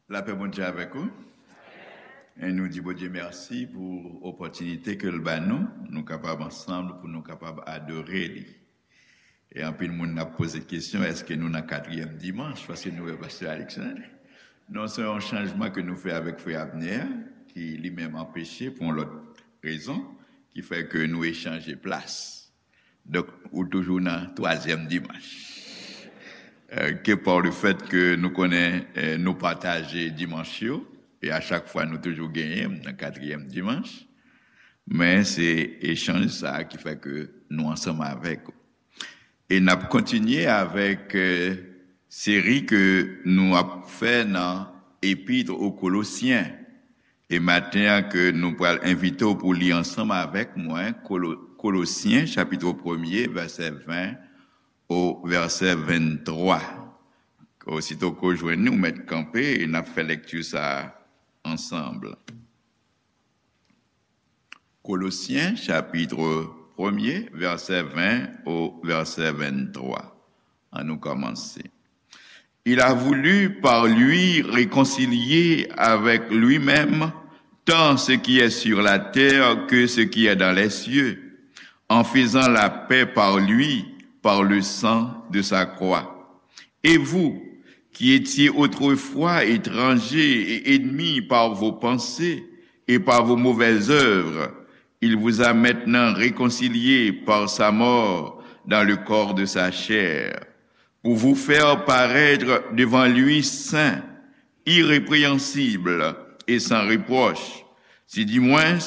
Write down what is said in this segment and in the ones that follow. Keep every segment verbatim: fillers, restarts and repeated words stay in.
Lapè Bondye avèk ou. E nou di Bondye mèsi pou opòtinite ke l ba nou, nou kapab ansanm, pou nou kapab adore li. E anpil moun ap poze kesyon, èske nou nan katriyèm dimanch, paske nou wè Pastè Alexandre? Non, se yon chanjman ke nou fè avèk Frè Abner, ki li menm anpeche pou yon lòt rezon, ki fè ke nou echanje plas. Donk, ou toujou nan twazyèm dimanch. Euh, ke pa le fèt ke nou konnen, euh, nou pataje dimanch yo, e a chak fwa nou toujou genyen nan katriyèm dimanch, men se echanj sa a ki fè ke nou ansanm avèk ou. E n ap kontinye avèk, euh, seri ke nou ap fè nan Epître aux Colossiens. E maten an ke nou pral envite w pou li ansanm avèk mwen, Kolo-, Kolosyen, chapit premye, vèsè ven o vèsè venntwa. Osito ke w jwenn li, ou mèt kanpe e n ap fè lèkti sa a ansanm. Kolosyen, chapit premye, vèsè ven o vèsè venntwa. Ann nou kòmanse. Il a voulu par lui réconcilier avec lui-même tant ce qui est sur la terre que ce qui est dans les cieux, en faisant la paix par lui, par le sang de sa croix. Et vous, qui étiez autrefois étrangers et ennemis par vos pensées et par vos mauvaises œuvres, il vous a maintenant réconciliés par sa mort dans le corps de sa chair, pour vous faire paraître devant lui saints, irrépréhensibles et sans reproche, si du moins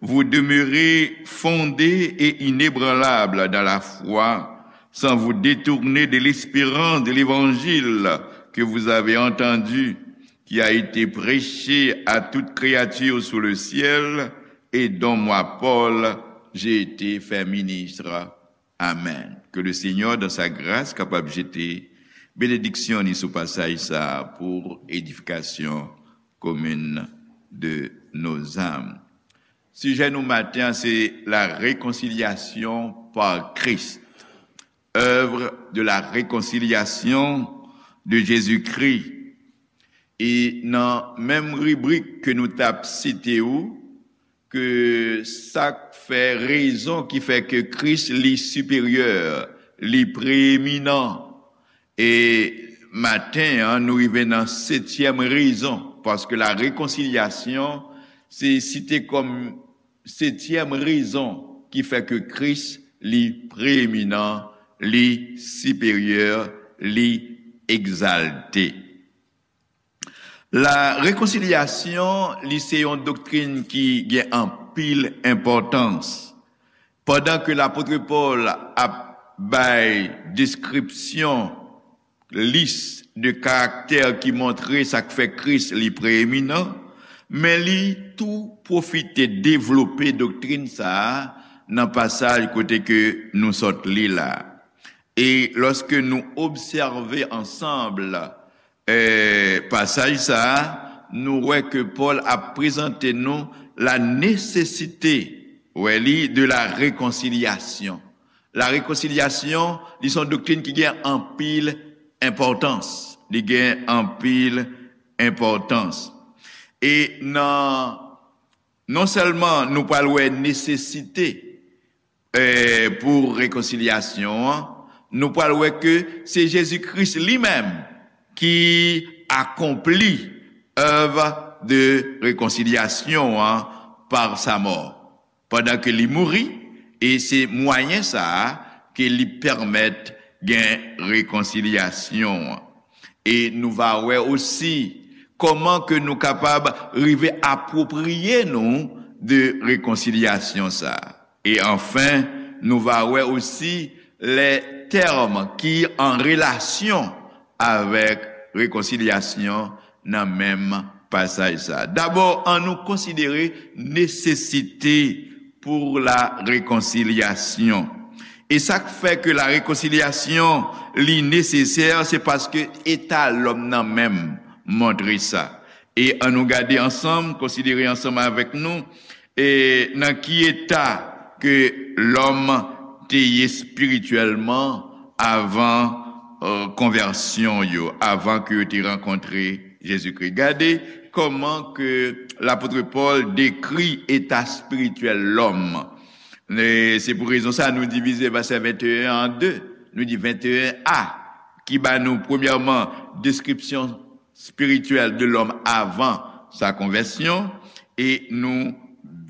vous demeurez fondés et inébranlables dans la foi, sans vous détourner de l'espérance de l'évangile que vous avez entendu, qui a été prêché à toute créature sous le ciel, et dont moi, Paul, j'ai été fait ministre. Amen. Que le Seigneur, dans sa grâce, kapab jete benediksyon li sou pasaj sa a pou edifikasyon komin de nos âmes. Sijè nou maten an se la réconciliation par Christ, œuvre de la réconciliation de Jésus-Christ. E nan menm ribrik ke nou t ap site ou, ke sa k fè rezon ki fè ke Kris li siperyè, li preyeminan. E maten an, nou rive nan setyèm rezon, paske la réconciliation, se site kòm setyèm rezon ki fè ke Kris li preyeminan, li siperyè, li egzalte. La réconciliation, li se yon doktrin ki gen anpil enpòtans. Pandan ke lapot Pòl ap bay deskripsyon, lis de karaktè ki montre sa k fè Kris li preyeminan, men li tou pwofite devlope doktrin sa a nan pasaj kote ke nou sot li la. E lòske nou obsève ansanm, eh, pasaj sa a, nou wè ke Pòl ap prezante nou la nesesite, wè li, de la réconciliation. La réconciliation, li se yon doktrin ki gen anpil enpòtans. Li gen anpil enpòtans. E nan, non sèlman nou pral wè nesesite, eh, pou rekonsilyasyon an, nou pral wè ke se Jezi Kris li menm ki akonpli èv de rekonsilyasyon an pa sa mò, pandan ke li mouri, e se mwayen sa a ke li pèmèt gen rekonsilyasyon an. E nou va wè osi kòman ke nou kapab rive apwopriye nou de rekonsilyasyon sa a. E anfen, nou va wè osi lè tèm ki an relasyon avèk rekonsilyasyon nan menm pasaj sa a. Dabò, ann nou konsidere nesesite pour la réconciliation. E sa k fè ke la rekonsilyasyon li nesesè, se paske eta lòm nan menm montre sa. E ann nou gade ansanm, konsidere ansanm avèk nou, e nan ki eta ke lòm te ye espirityèlman avan, euh, konvèsyon yo, avan ke yo te rankontre Jezikri. Gade kòman ke lapot Pòl dekri eta espirityèl lòm. E se pou rezon sa nou divize vèsè venteyen an de. Nou di venteyen a, ki ba nou, premyèman, deskripsyon espirityèl de lòm avan sa konvèsyon, e nou,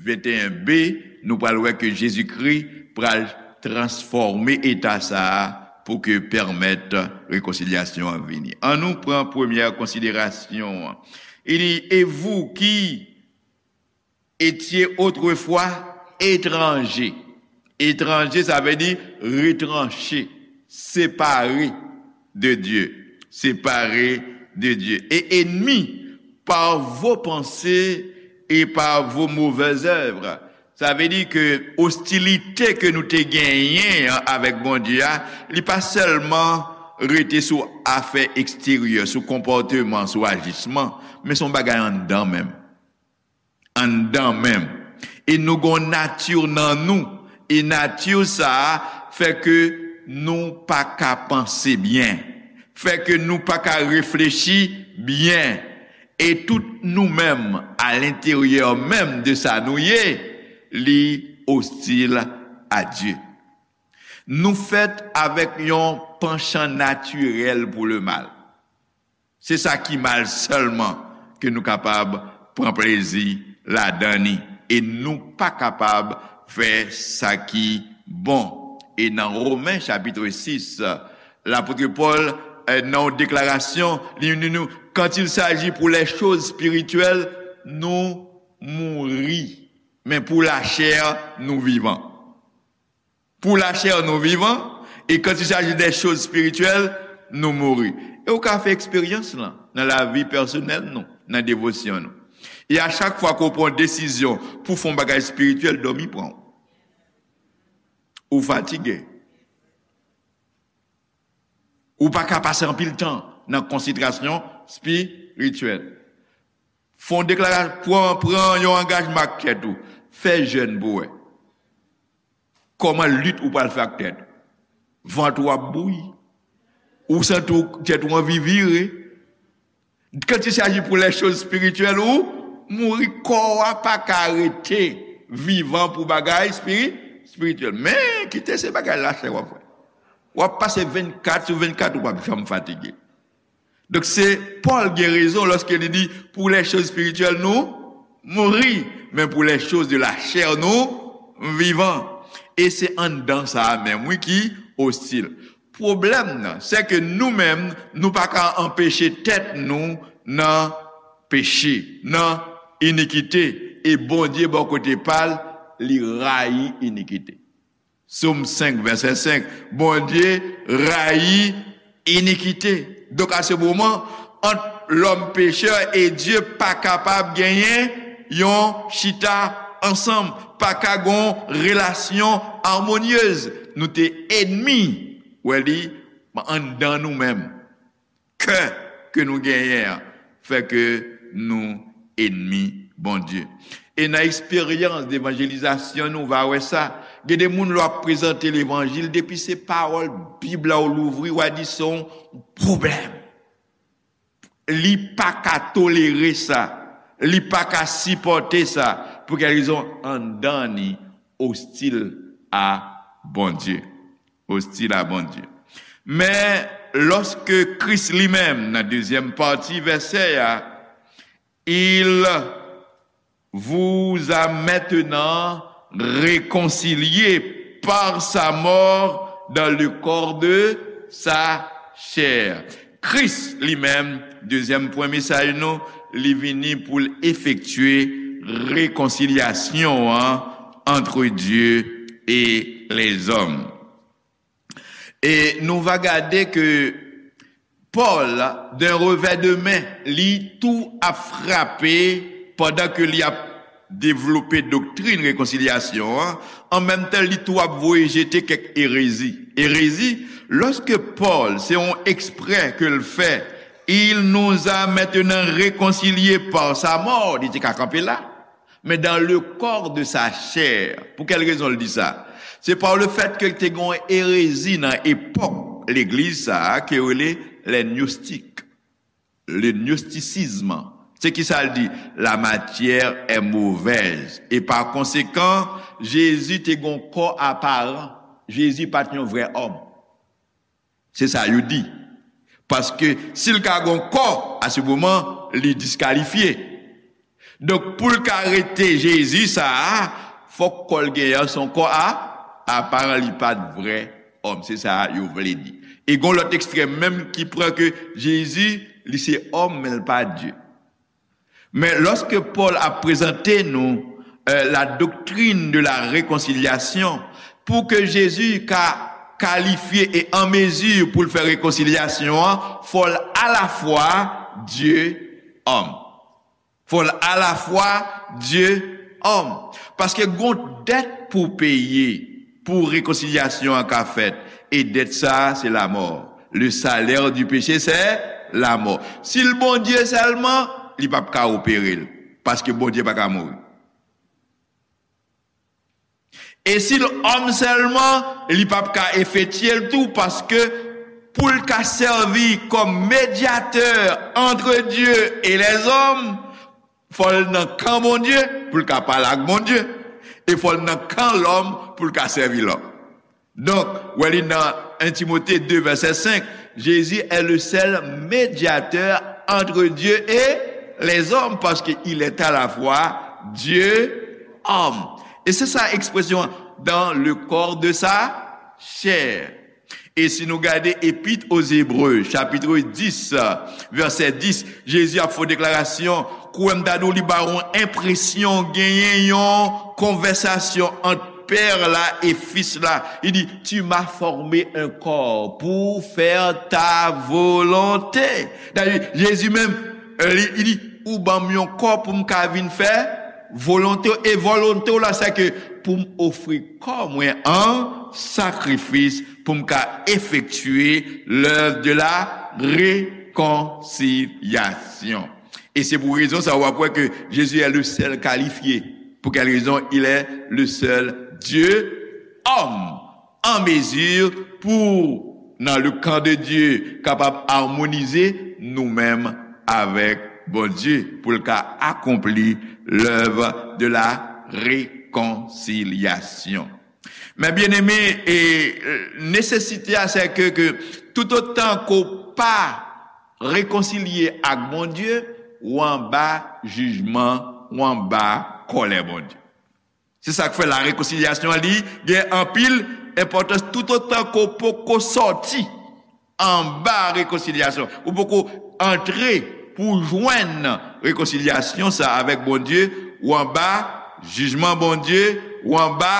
venteyen b, nou pral wè ke Jezikri pral transfòme eta sa a pou ke pèmèt rekonsilyasyon an vini. Ann nou pran premyè konsiderasyon an. Li di, et vous qui étiez autrefois étrangers. Étranje, sa vle di retranché, séparé de Dieu, séparé de Dieu, et ennemis par vos pensées et par vos mauvaises œuvres. Sa vle di ke ostilite ke nou te genyen an avèk Bondye a, li pa sèlman rete sou afè eksteryè, sou konpòteman, sou ajisman, men se yon bagay anndan menm. Anndan menm. E nou gon nati nan nou. E nati sa a fè ke nou pa ka panse byen. Fè ke nou pa ka reflechi byen. E tout nou menm, alenteryè menm de sa nou ye, li ostil a Dye. Nou fèt avèk yon panchan natirèl pou lemal. Se sa ki mal sèlman ke nou kapab pran plezi ladan li. E nou pa kapab fè sa ki bon. E nan Women chapit sis, lapot Pòl, eh, nan yon deklarasyon, li di nou, quand il s'agit pour les choses spirituelles, nou mouri. Men pou lachè, nou vivan. Pou lachè, nou vivan, e quand il s'agit des choses spirituelles, nou mouri. E ou ka fè eksperyans lan nan lavi pèsonèl nou, nan devosyon nou. E a chak fwa ke w pran yon desizyon pou fè yon bagay espirityèl, dòmi pran w. Ou fatige. Ou pa ka pase anpil tan nan konsantrasyon espirityèl. Fè yon deklarasyon, pran, pran yon angajman ak tèt ou. Fè jèn pou wè. Kòman lit ou pral fè ak tèt ou? Vant ou ap bouyi. Ou santi w, tèt ou anvi vire. Quand il s'agit pour les choses spirituelles, ou mouri, kò a pa ka rete vivan pou bagay espiri-, espirityèl. Men, kite se bagay lachè w ap fè. W ap pase vennkat sou vennkat, ou p ap janm fatige. Donk, se Pòl gen rezon lòske li di, pour les choses spirituelles, nou mouri, men pour les choses de la chair, nou vivan. E se anndan sa a menm, wi, ki ostil. Pwoblèm nan, se ke nou menm, nou pa ka anpeche tèt nou nan peche, nan inikite. E Bondye, bò kote pa l, li rayi inikite. Sòm senk, vèsè senk, Bondye rayi inikite. Donk, a se moman, ant lòm pechè e Dye pa kapab genyen yon chita ansanm, pa ka gon relasyon amonyez. Nou te enmi, wè li, anndan nou menm. Kè ke nou genyen an fè ke nou enmi Bondye. E nan eksperyans devanjelizasyon nou va wè sa. Gen de moun lè w ap prezante levanjil, depi se pawòl Bib la w louvri, w a di se yon pwoblèm. Li pa ka tolere sa. Li pa ka sipòte sa. Pou kèl rezon? Anndan ni ostil a Bondye. Ostil a Bondye. Men, lòske Kris li menm, nan dezyèm pati vèsè a, il vous a maintenant réconciliés par sa mort dans le corps de sa chair. Kris li menm, dezyèm pwen mesaj nou, li vini pou l efektye rekonsilyasyon an entre Dieu et les hommes. E nou va gade ke Pòl, d'un revers de main, li tou ap frape pandan ke li ap devlope doktrin rekonsilyasyon an, an menm tan li tou ap voye jete kèk erezi. Erezi, lòske Pòl, se yon eksprè ke l fè, il nous a maintenant réconciliés par sa mort, li te ka kanpe la. Men dans le corps de sa chair. Pou kèl rezon l di sa? Se pa le fèt ke te gen yon erezi nan epòk legliz sa a ke yo rele les gnostiques. le gnosticisme. Se ki sa l di? La matière est mauvaise. E pa konsekan, Jezi te gon kò aparan. Jezi pa t yon vrè òm. Se sa yo di. Paske si l ka gon kò, a se moman, li diskalifye. Donk, pou l ka rete Jezi sa a, fòk kò l genyen an se yon kò a, aparan, li pa t vrè òm. Se sa yo vle di. E gon lòt ekstrèm menm ki pran ke Jezi, li se òm, men l pa Dye. Men lòske Pòl ap prezante nou, euh, la doctrine de la réconciliation, pou ke Jezi ka kalifye e an mezi pou l fè rekonsilyasyon an, fò l alafwa Dye, òm. Fò l alafwa Dye, òm. Paske gon dèt pou peye pou rekonsilyasyon an ka fèt. E dèt sa a, se lamò. Le salaire du péché, c'est la mort. Si l Bondye sèlman, li p ap ka opere l. Paske Bondye pa ka mouri. E si l òm sèlman, li p ap ka efektye l tou, paske pou l ka sèvi kòm medyatè entre Dieu et les hommes, fò l nan kan Bondye pou l ka pale ak Bondye, e fò l nan kan lòm pou l ka sèvi lòm. Donk, wè li nan un Timothée deux, verset cinq, Jésus est le seul médiateur entre Dieu et les hommes, parce qu'il est à la fois Dieu, homme. E se sa ekspresyon dans le corps de sa chair. E si nou gade Epître aux Hébreux, chapitre dix, verset dix, Jezi ap fè deklarasyon, kwè m ta di w li ba w yon enpresyon genyen yon konvèsasyon ant Pè la e Fis la. Li di, tu m'as formé un corps pour faire ta volonté. Dayè, Jezi menm, li, li di, ou ban m yon kò pou m ka vin fè volonte w. E volonte w la, se ke pou m ofri kò mwen an sakrifis, pou m ka efektye l'œuvre de la réconciliation. E se pou rezon sa, w ap wè ke Jezi est le seul qualifié. Pour quelle raison? Il est le seul Dieu, homme, en mesure pour, dans le camp de Dieu, kapab amonize nou menm avèk Bondye, pou l ka akonpli l'œuvre de la réconciliation. Men byeneme, e, nesesite a, se ke, ke toutotan ke w pa rekonsilye ak Bondye, w anba jijman, w anba kòlè Bondye. Se sa k fè la rekonsilyasyon an li gen anpil enpòtans toutotan ke w poko sòti anba rekonsilyasyon. Ou poko antre pou w jwenn rekonsilyasyon sa avèk Bondye, w anba jijman Bondye, w anba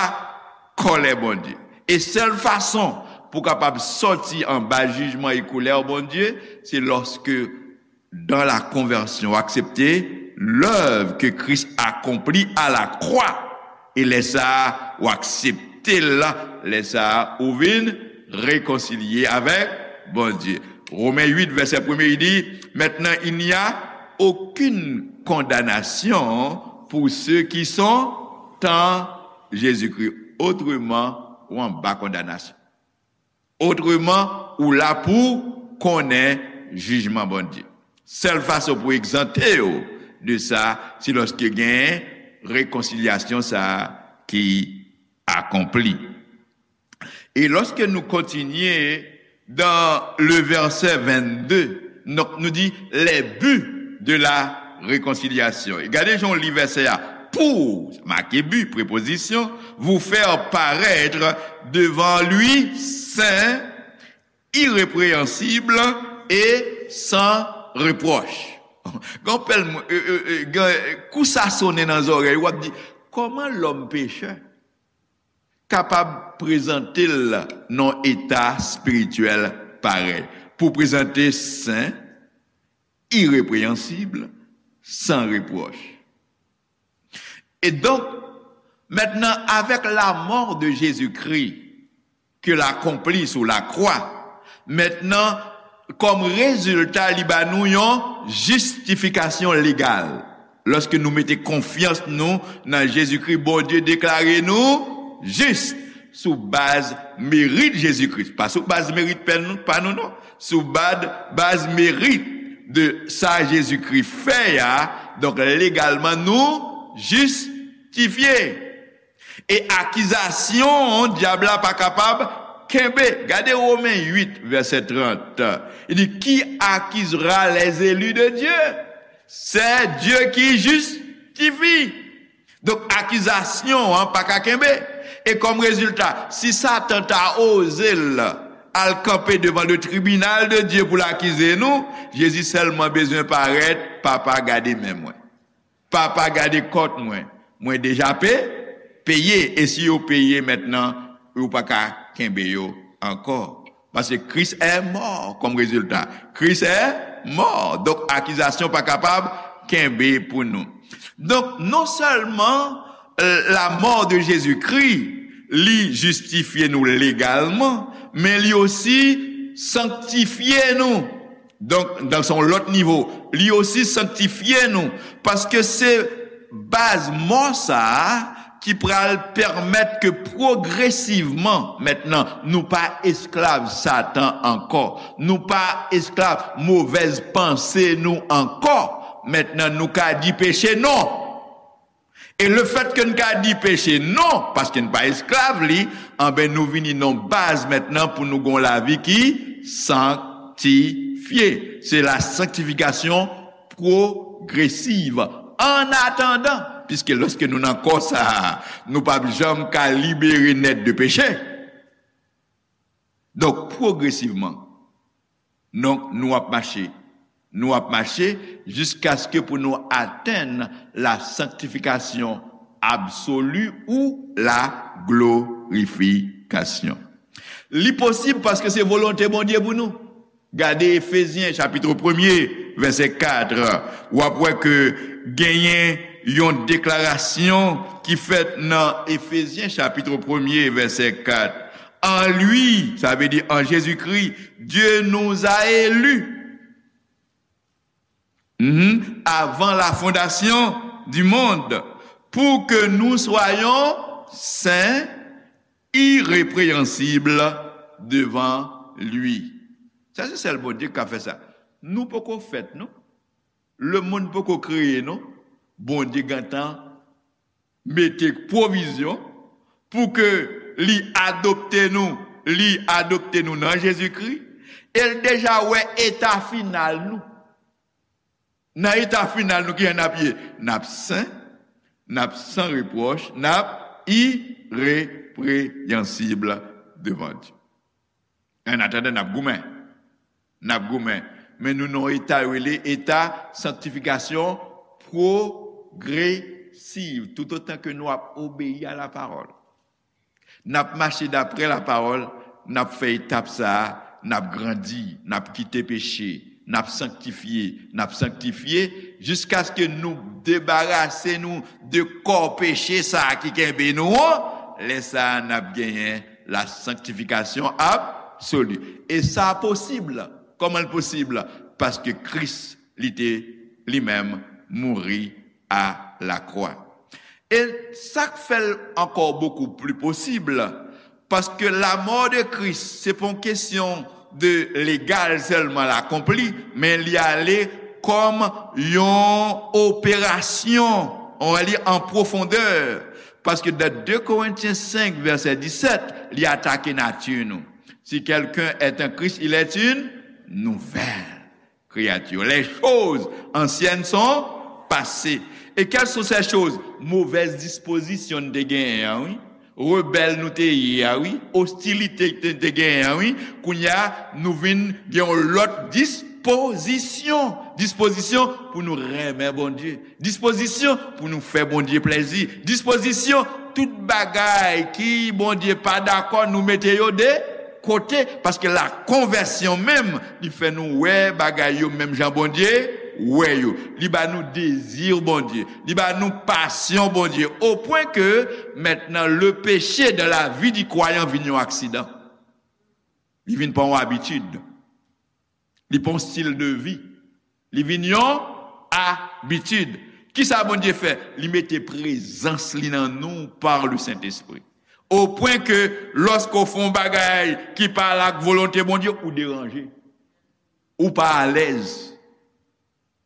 kòlè Bondye. E sèl fason pou w kapab sòti anba jijman e kòlè Bondye, se lòske dans la conversion, w aksepte l'œuvre que Christ accomplit à la croix. E lè sa a, w aksepte l, lè sa a, ou vin rekonsilye avèk Bondye. Romen uit, vèsè premye, li di, maintenant, il n'y a aucune condamnation pour ceux qui sont en Jésus-Christ. Otreman, w anba kondanasyon. Otreman, ou la pou konnen jijman Bondye. Sèl fason pou egzante w de sa, se lòske gen rekonsilyasyon sa a ki akonpli. E lòske nou kontinye dans le verset vingt-deux, donk nou di les buts de la réconciliation. E gade jan w li vèsè a. Pour, make but, prepozisyon, vous faire paraître devant lui saint, irrépréhensible et sans reproche. Gen pèl moun, e, e, e, gen, kou sa sonnen nan zòrèy, w ap di, kòman lòm pechè kapab prezante l nan yon eta espirityèl parèy? Pou prezante sen, irépréhensible, sans reproche. E donk, maintenant, avec la mort de Jésus-Christ, ke l akonpli sou lakwa, maintenant, kòm rezilta, li ba nou yon jistifikasyon legal. Lòske nou mete konfyans nou nan Jezikri, Bondye deklare nou jis sou baz merit Jezikri. Pa sou baz merit pa nou, pa nou, non. Sou baz, baz merit de sa Jezikri fè a, donk legalman nou jistifye. E akizasyon dyab la pa kapab kenbe. Gade Women uit, vèsè trant. Li di, qui accusera les élus de Dieu? C'est Dieu qui justifie. Donk, akizasyon an pa ka kenbe. E kòm rezilta, si Satan ta oze l al kanpe devan le tribinal de Dieu pou l akize nou, Jezi sèlman bezwen parèt, Papa, gade men mwen. Papa, gade kont mwen. Mwen deja pe, peye. E si yo peye mentnan, ou pa ka kenbe yo ankò. Paske Christ est mort comme résultat. Christ est mort. Donk, akizasyon pa kapab kenbe pou nou. Donk, non sèlman, euh, la mort de Jésus-Christ, li jistifye nou legalman, men li osi sanktifye nou. Donk, dan son lòt nivo, li osi sanktifye nou. Paske se baz mò sa a ki pral pèmèt ke pwogresivman, mentnan, nou pa esklav Satan ankò. Nou pa esklav movèz panse nou ankò. Mentnan, nou ka di peche non. E lefèt ke n ka di peche non, paske n pa esklav li, anben, nou vini nan baz mentnan pou nou gon lavi ki sanktifye. Se la sanctification progressive. Annatandan, piske lòske nou nan kò sa a, nou p ap janm ka libere nèt de peche. Donk, pwogresivman, donk, nou ap mache. Nou ap mache jiskaske pou nou atenn la sanctification absolue ou la glorification. Li posib paske se volonte Bondye pou nou. Gade Efezyen, chapit premye, vèsè kat. W ap wè ke genyen yon deklarasyon ki fèt nan Efezyen, chapit premye, vèsè kat. En lui, sa vle di an Jezikri, Dieu nous a élus, mhm, avant la fondation du monde, pour que nous soyons saints, irrépréhensibles devant lui. Sa se sèl Bondye k ka fè sa. Nou poko fèt, non. Lemonn poko kreye, non. Bondye gentan mete pwovizyon pou ke li adopte nou, li adopte nou nan Jezikri, e l deja wè eta final nou. Nan eta final nou, kijan n ap ye? N ap sen, n ap san repwòch, n ap ireprenyansib devan Dye. Annatandan, n ap goumen. N ap goumen. Men nou nan yon eta yo rele eta sanktifikasyon pwogresiv, toutotan ke nou ap obeyi a la pawòl. N ap mache daprè la pawòl, n ap fè etap sa a, n ap grandi, n ap kite peche, n ap sanktifye, n ap sanktifye, jiskaske nou debarase nou de kò peche sa a ki kenbe nou an. Lè sa a, n ap genyen la sanctification absolue. E sa posib. Kòman l posib? Paske Kris, li te, li menm, mouri a la croix. E sa k fè l ankò bokou pli posib, paske la mort de Christ, se pa yon kesyon de legal sèlman, l akonpli, men li ale kòm yon operasyon, on va dire, an pwofondè. Paske dans deux Corinthiens cinq, vèsè disèt, li atake nati nou. Si quelqu'un est en Christ, il est une nouvelle créature. Les choses anciennes sont passées. Et quelles sont ces choses? Movèz dispozisyon n te genyen an, wi. Rebèl nou te ye a, wi. Ostilite n te genyen an, wi. Kounye a, nou vin gen yon lòt dispozisyon. Dispozisyon pou nou renmen Bondye. Dispozisyon pou nou fè Bondye plèzi. Dispozisyon, tout bagay ki Bondye pa dakò, nou mete yo de kote, paske la konvèsyon menm, li fè nou wè bagay yo menm jan Bondye wè yo. Li ba nou dezi Bondye. Li ba nou pasyon Bondye. Au point que, maintenant, le péché dans la vie du croyant vin yon aksidan. Li vin pa yon abitid. Li pa yon stil de vi. Li vin yon abitid. Kisa Bondye fè? Li mete prezans li nan nou par le Saint-Esprit. Au point que, lòske w fè yon bagay ki pa al ak volonte Bondye, ou deranje. Ou pa alèz.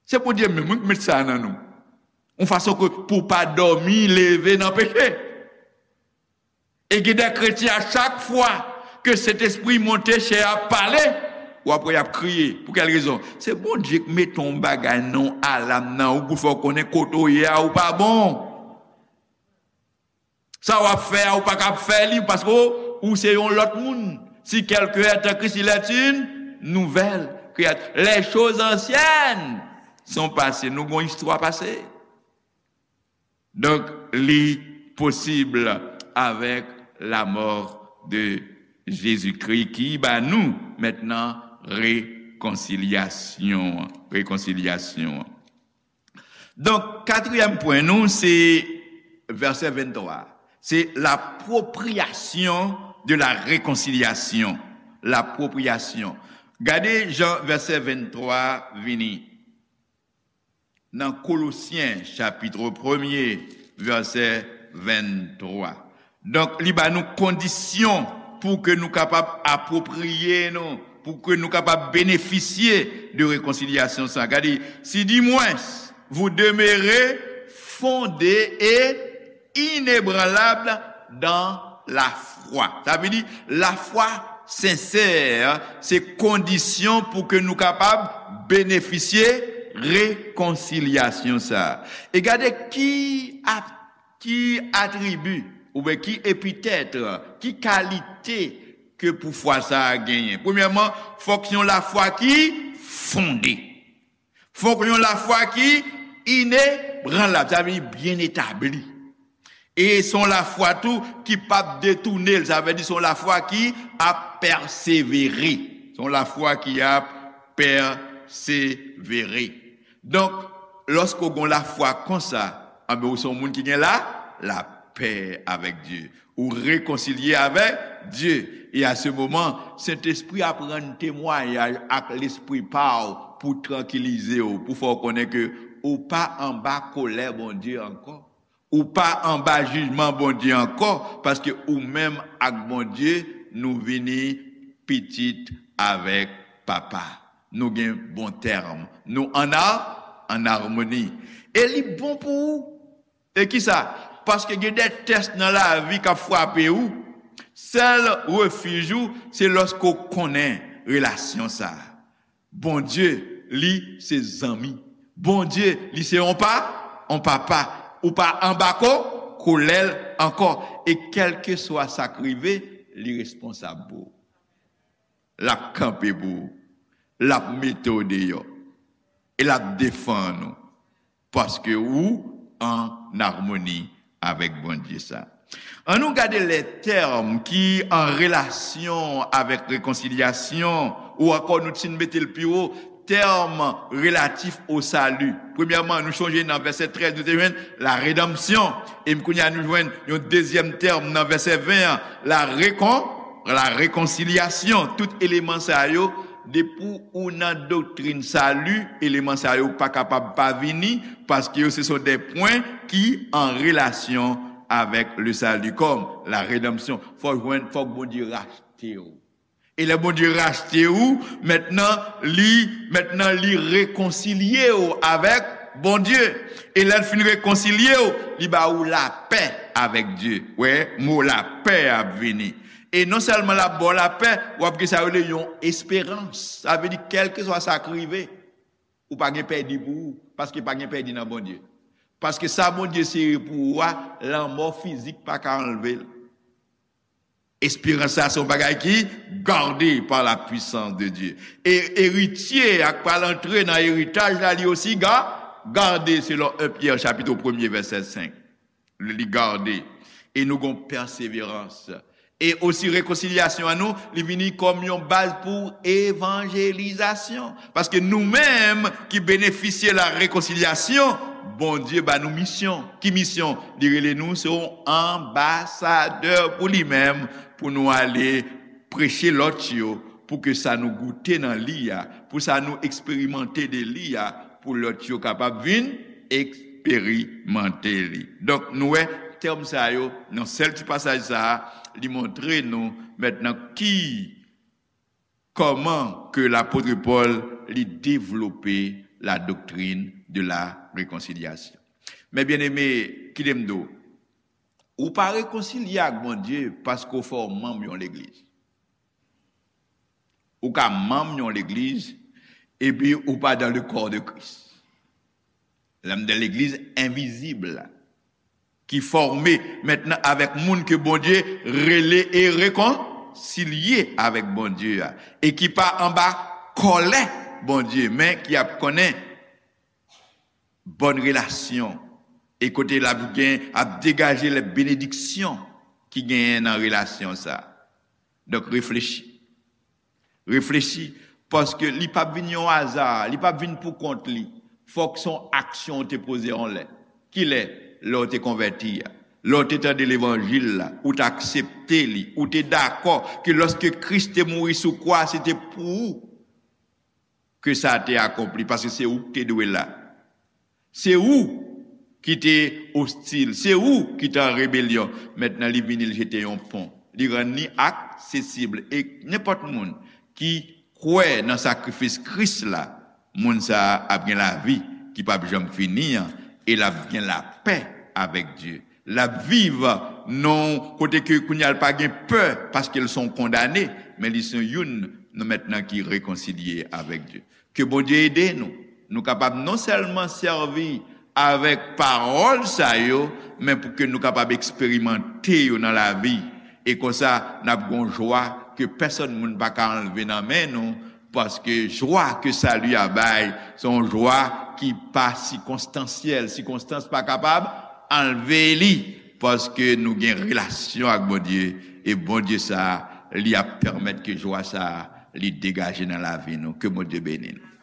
Se Bondye menm, wi, ki met sa nan nou. Yon fason ke pou w pa dòmi, leve nan peche. E gen de kretyen, a chak fwa ke Sentespri monte, chè a pale, w ap wè y ap kriye. Pou kèl rezon? Se Bondye ki mete yon bagay nan yon alam nan ou pou fè w konnen kote w ye a, ou pa bon. Sa w ap fè a, ou pa kab fè li, paske ou, ou se yon lòt moun. Si quelqu'un est en Christ, il est une nouvelle créature. Les choses anciennes sont passées. Nou gon istwa pase. Donk, li posib avèk la mort de Jésus-Christ ki ba nou mentnan rekonsilyasyon. Rekonsilyasyon. Donk, katriyèm pwen nou, se vèsè venntwa. Se l'appropriation de la réconciliation. L'appropriation. Gade jan vèsè venntwa vini. Nan Kolosyen, chapit premye, vèsè venntwa. Donk, li ba nou kondisyon pou ke nou kapab apwopriye nou, pou ke nou kapab benefisye de rekonsilyasyon sa. Gade, si dimwens vous demeurez fondés et inébranlables dans la foi. Sa vle di, lafwa sensè, se kondisyon pou ke nou kapab benefisye rekonsilyasyon sa. E gade ki ap, ki atribi, oubyen ki epitèt, ki kalite ke pou fwa sa a genyen. Premyèman, fòk se yon lafwa ki fonde. Fòk yon lafwa ki inebranlab, sa vle di byen etabli. E se yon lafwa tou ki p ap detounen l, sa vle di se yon lafwa ki ap pèsevere. Se yon lafwa ki ap pèsevere. Donk, lòske w gen yon lafwa konsa, anben, ou se yon moun ki gen la, lapè avèk Dye. Ou rekonsilye avèk Dye. E a se moman, Sentespri ap rann temwayaj ak lespri pa w pou trankilize w, pou fè w konnen ke ou pa anba kolè Bondye ankò. Ou pa anba jijman Bondye ankò, paske ou menm ak Bondye, nou vini pitit avèk Papa. Nou gen bon tèm. Nou ann a-, ann amoni. E li bon pou ou. E kisa? Paske gen de tès nan lavi k ap frape ou. Sèl refij ou, se lòske w konnen relasyon sa a. Bondye, li se zanmi. Bondye, li se yon pa, yon papa. Ou pa anba ko, kolè l ankò. E kèlkeswa sa k rive, li responsab pou ou. L ap kanpe pou ou. L ap mete w deyò. E l ap defann ou. Paske ou ann amoni avèk Bondye sa. Ann nou gade lè tèm ki an relasyon avèk rekonsilyasyon, ou ankò nou ti mete l pi wo, tèm relatif o sali. Premyèman, nou chonje nan vèsè trèz, nou te jwenn la redanmsyon. E kounye a nou jwenn yon dezyèm tèm nan vèsè ven an, la rekon-, la rekonsilyasyon. Tout eleman sa yo, depi ou nan doktrin sali, eleman sa yo pa kapab pa vini, paske yo se sont des points ki an relasyon avèk le salut, kòm la redanmsyon. Fòk jwenn, fòk Bondye rachte w. E lè Bondye rachte ou, mentnan li, mentnan li rekonsilye w avèk Bondye. E lè l fin rekonsilye w, li ba ou lapè avèk Dye. Wè, mo lapè ap vini. E non sèlman l ap ba w lapè, w ap gen sa yo rele yon esperans. Sa vle di, kèlkeswa sa k rive, ou pa gen pèdi pou ou, paske pa gen pèdi nan Bondye. Paske sa Bondye sere pou ou a, lanmò fizik pa ka anlve l. Esperans sa se yon bagay ki gade par la puissance de Dieu. E eritye a k pral antre nan eritaj la, li osi ga-, gade, selon en Pyè chapit premye vèsè senk. Li gade. E nou gon pèseverans. E osi rekonsilyasyon an nou, li vini kòm yon baz pou evanjelizasyon. Paske nou menm ki benefisye la rekonsilyasyon, Bondye ba nou misyon. Ki misyon? Li rele nou se yon anbasadè pou li menm, pou nou ale preche lòt yo, pou ke sa nou goute nan li a, pou sa nou eksperimante de li a, pou lòt yo kapab vin eksperimante li. Donk, nou wè tèm sa yo, nan sèl ti pasaj sa a, li montre nou mentnan ki, kòman ke lapot Pòl li devlope la doctrine de la réconciliation. Men byeneme, kite m di w, ou pa rekonsilye ak Bondye paske w fè w manm yon legliz. Ou ka manm yon legliz, epi ou pa dans le corps de Christ. Lè m di legliz envizib la, ki fòme mentnan avèk moun ke Bondye rele e rekonsilye avèk Bondye a, e ki pa anba kòlè Bondye, men ki ap konnen bòn relasyon, e kote l ap gen, ap degaje lè benediksyon ki genyen nan relasyon sa. Donk, reflechi. Reflechi, paske li p ap vin yon aza, li p ap vin pou kont li. Fòk se yon aksyon ou te poze yon lè. Kilè? Lè w te konvèti a. Lè w te tande levanjil la, ou te aksepte li, ou te dakò ke lòske Kris te mouri sou kwa, se te pou ou ke sa te akonpli, paske se ou ki te dwe la. Se ou ki te ostil, se ou ki te an rebelyon. Mentnan, li vini, li jete yon pon. Li rann li aksesib. E nenpòt moun ki kwè nan sakrifis Kris la, moun sa a ap gen lavi ki p ap janm fini an, e l ap gen lapè avèk Dye. L ap viv nan yon kote ke kounye a l pa gen pè, paske l se yon kondane, men li se youn nan mentnan ki rekonsilye avèk Dye. Ke Bondye ede nou. Nou kapab non sèlman sèvi avèk pawòl sa yo, men pou ke nou kapab eksperimante yo nan lavi. E konsa, n ap gen yon jwa ke pèsonn moun pa ka anlve nan men nou, paske jwa ke sali a bay, se yon jwa ki pa sikonstansyèl. Sikonstans pa kapab anlve li, paske nou gen relasyon ak Bondye, e Bondye sa a, li ap pèmèt ke jwa sa a, li degaje nan lavi nou. Ke Bondye beni nou.